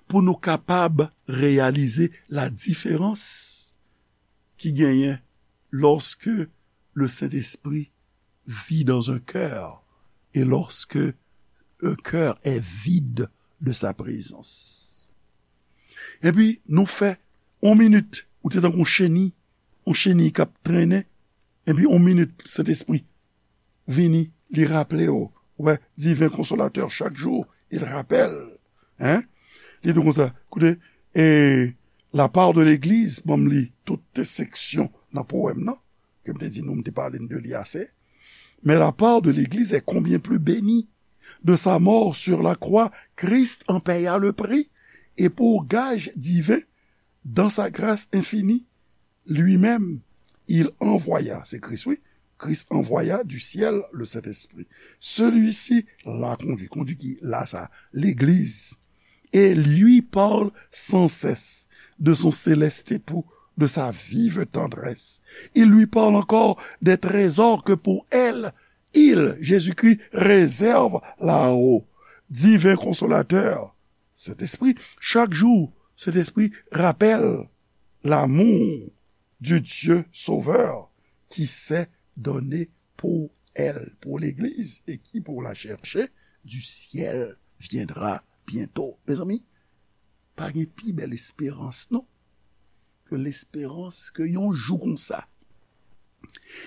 pou nou kapab reyalize la diferans ki genyen lorsque le Saint-Esprit vit dans un cœur et lorsque un cœur est vide de sa présence. Epi, nou fè yon minit, ou te tankou yon cheni, yon cheni k ap trennen, epi yon minit, Sentespri vini, li raple w. Ou wè, Divin Konsolatè, chak jou, il rappelle. Hein? Li di konsa, koute, e, la part de l'église, ban m li tout seksyon nan powèm nan, ke m te di nou, m te pale n de li ase. Mais la part de l'église est combien plus bénie. De sa mort sur la croix, Christ en paya le prix, et pour gage divin, dans sa grâce infinie, lui-même, il envoya, se Kris, wi, Christ envoya du ciel le Saint-Esprit. Celui-ci la conduit, conduit qui? La sa, legliz. Et lui parle sans cesse de son céleste époux, de sa vive tendresse. Il lui parle encore des trésors que pour elle, il, Jésus-Christ, réserve là-haut. Divin consolateur, Saint-Esprit, chaque jour, Saint-Esprit rappelle l'amour du Dieu Sauveur qui s'est donné pour elle, pour l'Église, et qui, pour la chercher, du ciel viendra bientôt. Mezanmi, pa gen pi bèl esperans, non, ke lesperans ke yon jou konsa,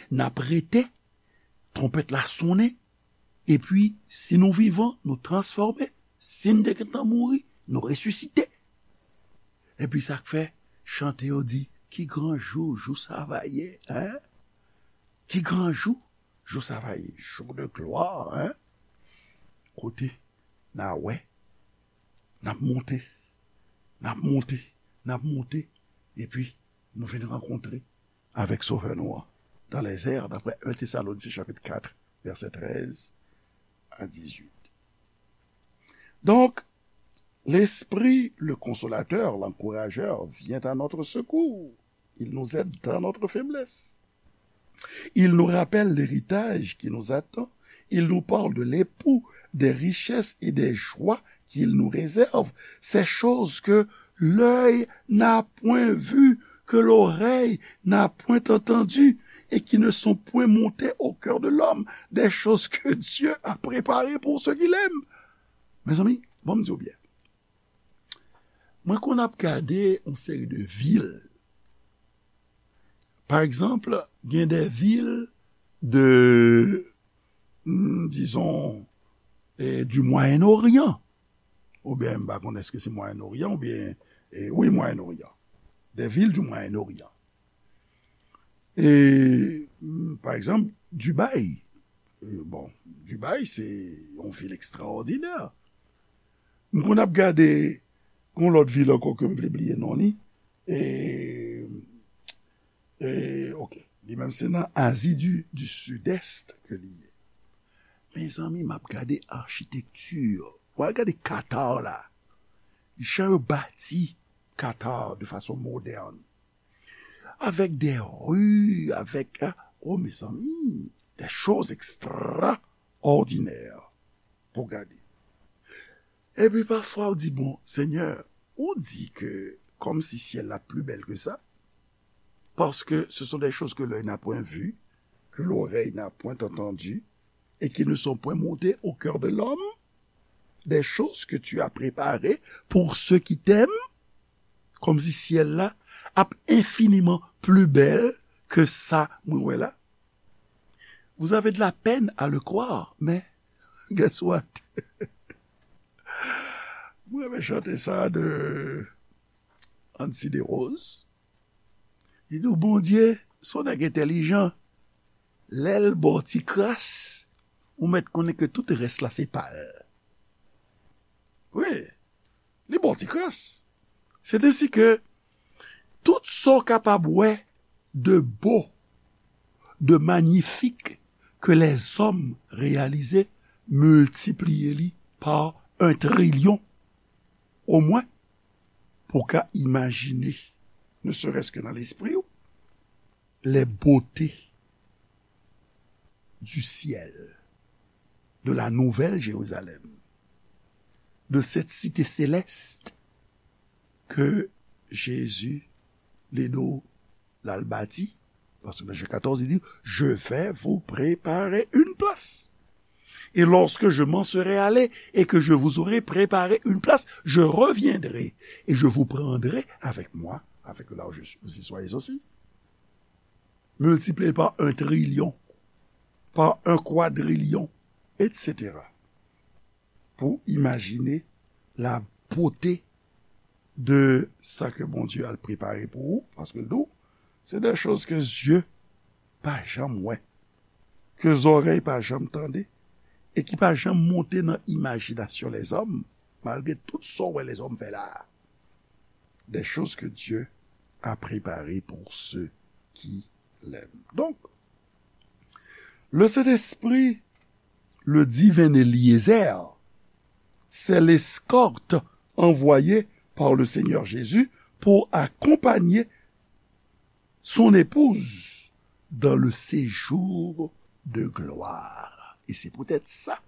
n ap rete, twonpèt la sonnen, epi, si nou vivan, nou transfòme, si n te gentan mouri, nou resisite. Epi sa k fè chante yo di, ki gran jou, jou sa va ye, hein? Ki gran jou, jou sa va ye, jour de gloire, hein? Kote n a wè, n ap monte, n ap monte, n ap monte, epi nou vin rankontre avèk Sovè nou an dans les airs, d'après un Thessaloniciens chapitre quatre, verset treize à dix-huit. Donc, l'Esprit, le Consolateur, l'Encourageur, vient à notre secours. Il nous aide dans notre faiblesse. Il nous rappelle l'héritage qui nous attend. Il nous parle de l'époux, des richesses et des joies qu'il nous réserve. Ces choses que l'œil n'a point vues, que l'oreille n'a point entendues et qui ne sont point montées au cœur de l'homme, des choses que Dieu a préparées pour ceux qui l'aiment. Mezanmi, bon, m di w byen. Mwen konn ap gade yon seri de vil. Pa egzanp, gen de vil de, hmm, dizon, eh, du Moyen-Orient. Oubyen, m pa konn èske se Moyen-Orient, oubyen, eh, wi, Moyen-Orient. Des villes du Moyen-Orient. E, mm, pa egzanp, Dubaï. E, bon, Dubaï, se yon vil ekstraòdinè. M konn ap gade yon lòt vil ankò ke m vle bliye non li. E, e, ok. Li menm se nan Azi du, du Sud-Est ke li ye. Mezanmi, m ap gade achitekti. W al gade Qatar la. Jan yo bati Qatar de fason modèn. Avec des rues, avec, ah, oh, mezanmi, des choses extraordinaires pou gade. Epi pafwa ou di, bon, Senyè, ou di ke kòmsi syèl la pli bèl ke sa, parce que ce sont des choses que l'œil n'a point vues, que l'oreille n'a point entendues, et qui ne sont point montées au cœur de l'homme, des choses que tu as préparées pour ceux qui t'aiment, kòmsi syèl la ap enfiniman pli bèl ke sa mwen wè la. Vous avez de la peine à le croire, mais guess what? Mwen renmen chante sa de Ancy Desroses. Li di w, Bondye se yon nèg entèlijan. Lè l ba w ti kras, Ou mèt konnen ke tout rès la se pa l. Wi, li ba w ti kras. C'est ainsi que tout sa w kapab wè de beau, de magnifique que les hommes réalisent, miltipliye li pa un trilyon, omwen, pou w ka imajine, ne serait-ce que nan lespri w, les beautés du ciel, de la Nouvelle Jérusalem, de cette cité céleste que Jésus, li di w, l al bati, paske nan Jan katòz, li di, je vais vous préparer une place. Et lorsque je m'en serai allé et que je vous aurai préparé une place, je reviendrai et je vous prendrai avec moi, afin que là où je suis, vous y soyez aussi. Miltipliye pa un trilyon, pa un kwadrilyon, et cetera. Pou imajine la beauté de sa ke Bondye al prepare pou ou, paske l di w, c'est des choses que yeux pa janm wè, ke zòrèy pa janm tande, e ki pa janm monte nan imajinasyon lèzòm, malgre tout sa w wè lèzòm fè la a. Des choses que Dieu a préparées pour ceux qui l'aiment. Donc, le Saint-Esprit, le divin Eliezer, c'est l'escorte envoyée par le Seigneur Jésus pour accompagner son épouse dans le séjour de gloire. Et c'est peut-être ça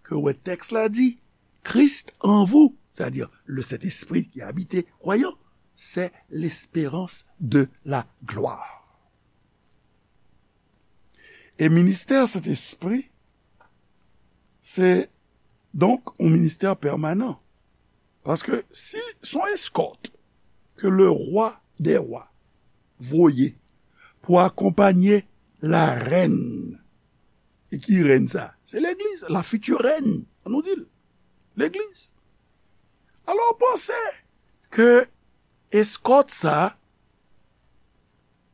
que le texte là dit, Christ en vous, c'est-à-dire le Saint-Esprit qui habite croyant, c'est l'espérance de la gloire. E ministè Sentespri, se donk yon ministè pèmanan. Paske si se yon eskòt ke le roi des rois voye pou akonpanye la rèn, e ki rèn sa? Se legliz, la future reine, an nou di l. Legliz. Alò, w panse ke eskòt sa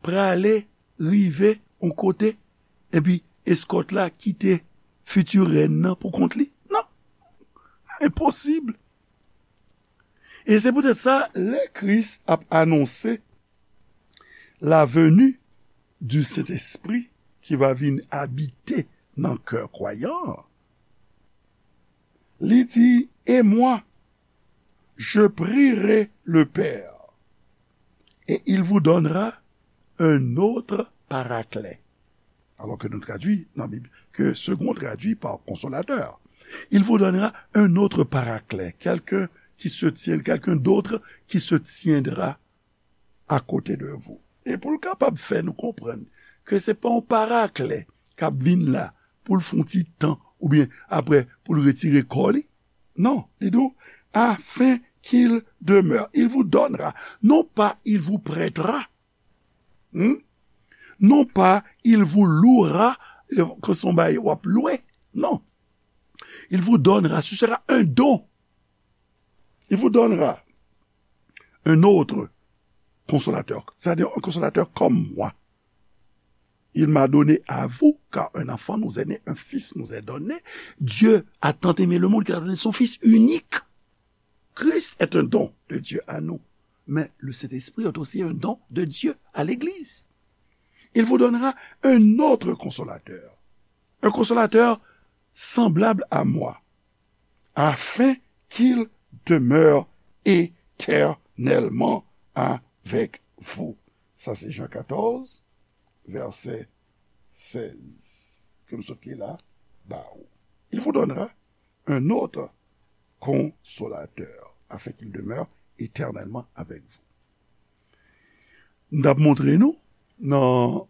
prale rive yon kote, epi eskòt la kite future rèn nan pou kont li? Non. Enposib. E se poutèt sa, lè Kris ap anonse la venue du Saint-Esprit ki va vin abite nan kè kwayan an, li di, et moi, je prierai le Père, et il vous donnera un autre paraclet. Alors que nous traduit dans la Bible, que second traduit par consolateur. Il vous donnera un autre paraclet, quelqu'un qui se tient, quelqu'un d'autre qui se tiendra à côté de vous. E pou l kapab fè nou konprann ke se pa yon parakle k ap vin la pou l fè yon ti tan oubyen apre pou l retire kò li. Non, li di w, afin qu'il demeure, il vous donnera, non pas il vous prêtera, hmm? Non pas il vous louera, ke se yon bagay w ap lwe. Non. Il vous donnera, ce sera un don. Il vous donnera un autre consolateur, c'est-à-dire un consolateur comme moi. Il m'a donné à vous, car un enfant nous est né, un fils nous est donné. Dieu a tant aimé le monde qu'il a donné son Fils unique. Christ est un don de Dieu à nous, mais le Saint-Esprit est aussi un don de Dieu à l'Église. Il vous donnera un autre consolateur, un consolateur semblable à moi, afin qu'il demeure éternellement avec vous. Sa se Jan katòz, vèsè sèz. Ke m sot li la, ba ou. Il vous donnera un autre consolateur, afin qu'il demeure éternellement avec vous. M t ap montre nou nan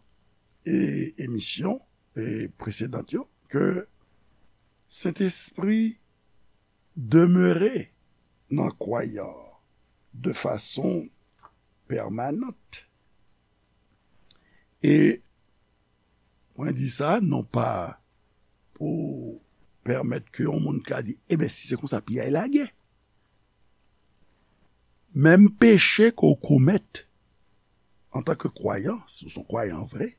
e, emisyon e, presedan yo ke Sentespri demere nan kwayan de fason pèmanant. E mwen di sa non pa pou pèmèt ke yon moun ka di, ebyen, si se konsa, piyay lage. Menm peche ke w komèt antanke kwayan, si w se yon kwayan vre,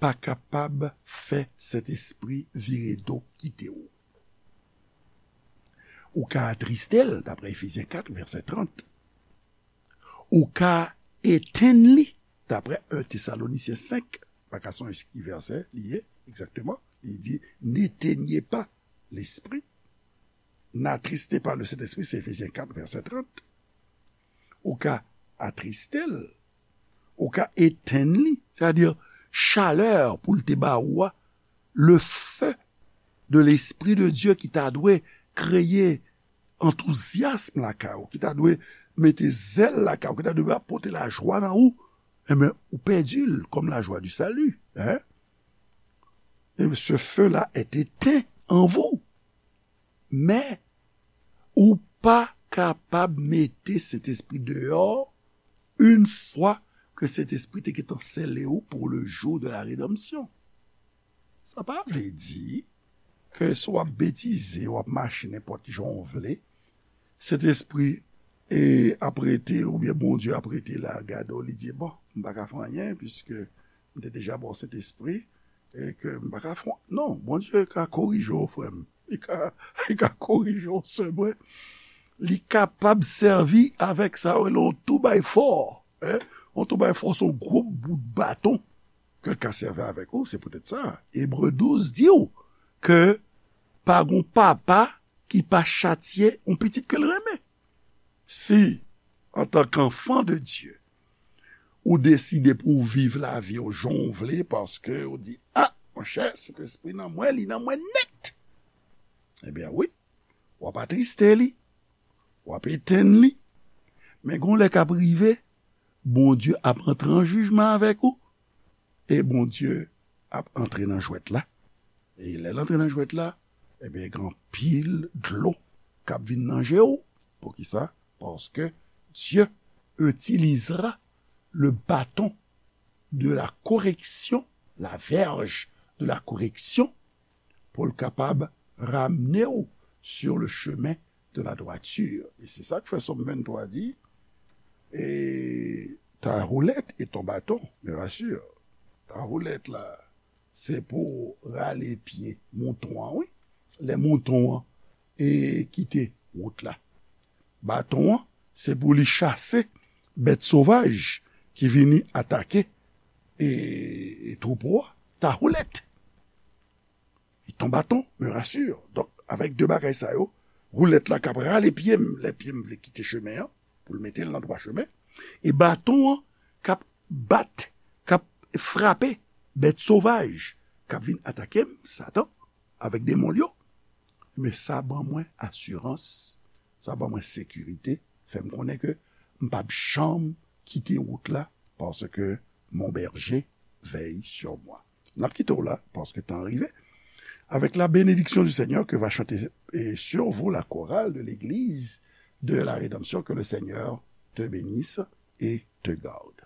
pa kapab fè Sentespri vire do kite w. Ou ka atriste l, daprè Efezyen kat, vèsè trant. Ou ka etenn li, daprè en Tesalonisyen senk, pa ka sonje ki vèsè li ye, egzakteman. Li di, n'éteignez pas l'esprit. N'attristez pas le Saint-Esprit, se Efezyen kat, vèsè trant. Ou ka atriste l, ou ka etenn li, sètadi chalè pou l te ba ou a, le feu de l'Esprit de Dieu ki ta dwe kreye antouzyasm lakay ou, ki ta dwe mete zèl lakay ou, ki ta dwe pote lajwa nan ou, enben, ou pèdi l, comme la joie du salut, hein? Et ce feu-là est éteint en vous. Men, ou pa kapab mete Sentespri deyò une fois que Sentespri te gentan sele ou pour le jour de la rédemption. Sa pa vle di ke si w ap betize, w ap mache nenpòt jan w vle, Sentespri e ap rete, oubyen Bondye ap rete la, gade w, li di, bon, m pa ka fè anyen, piske m te deja ba w Sentespri, e ke m pa ka fè, non, Bondye ka korije w, frè m. Li ka, li ka korije w, sè mwen. Li kapab sèvi avèk sa yo rele yon two by four, hein? Yon two by four, se yon gwo bout baton ke l ka sèvi avèk ou. Se poutèt sa, Ebre douz di w ke pa gon papa ki pa chatye yon pitit ke l renmen. Si, antanke anfan de Dye, ou deside pou w viv lavi w jan w vle, paske ou di, a, monchè, Sentespri nan mwen, li nan mwen nèt. Ebyen, wi, w ap atriste li, w ap etenn li. Men gon lè k ap rive, Bondye ap antre an jijman avèk ou, e Bondye ap antre nan jwèt la. E lè l antre nan jwèt la, ebyen, gen anpil dlo k ap vin nan je w. Poukisa? Paske Dieu utilisera le bâton de la correction, la verge de la correction, pou l kapab ramne w sur le chemin de la droiture. E se sa k fè Sòm venntwa di, et ta houlette et ton bâton me rassurent. Ta houlette la, se pou rale pye mouton an, wi. Lè mouton an e kite wout la. Baton an, se pou li chase bèt sovaj ki vini atake e, e twoupo a. Ta houlette et ton bâton me rassurent. Donk, avèk de bagay sa yo, woulèt la k ap rale pye m, lè pye m vle kite chemen an, pou l mete l nan dwa chemen, e baton an k ap bat, k ap frape bèt sovaj k ap vin atake m, Satan, avèk demon l yo, men sa ban mwen asirans, sa ban mwen sekirite, fè m konnen ke m p ap janm kite wout la, paske mon berger veille sur moi. N ap kite w la, paske tan an rive. Avec la bénédiction du Seigneur que va chanter et sur vous la chorale de l'église de la rédemption, que le Seigneur te bénisse et te garde.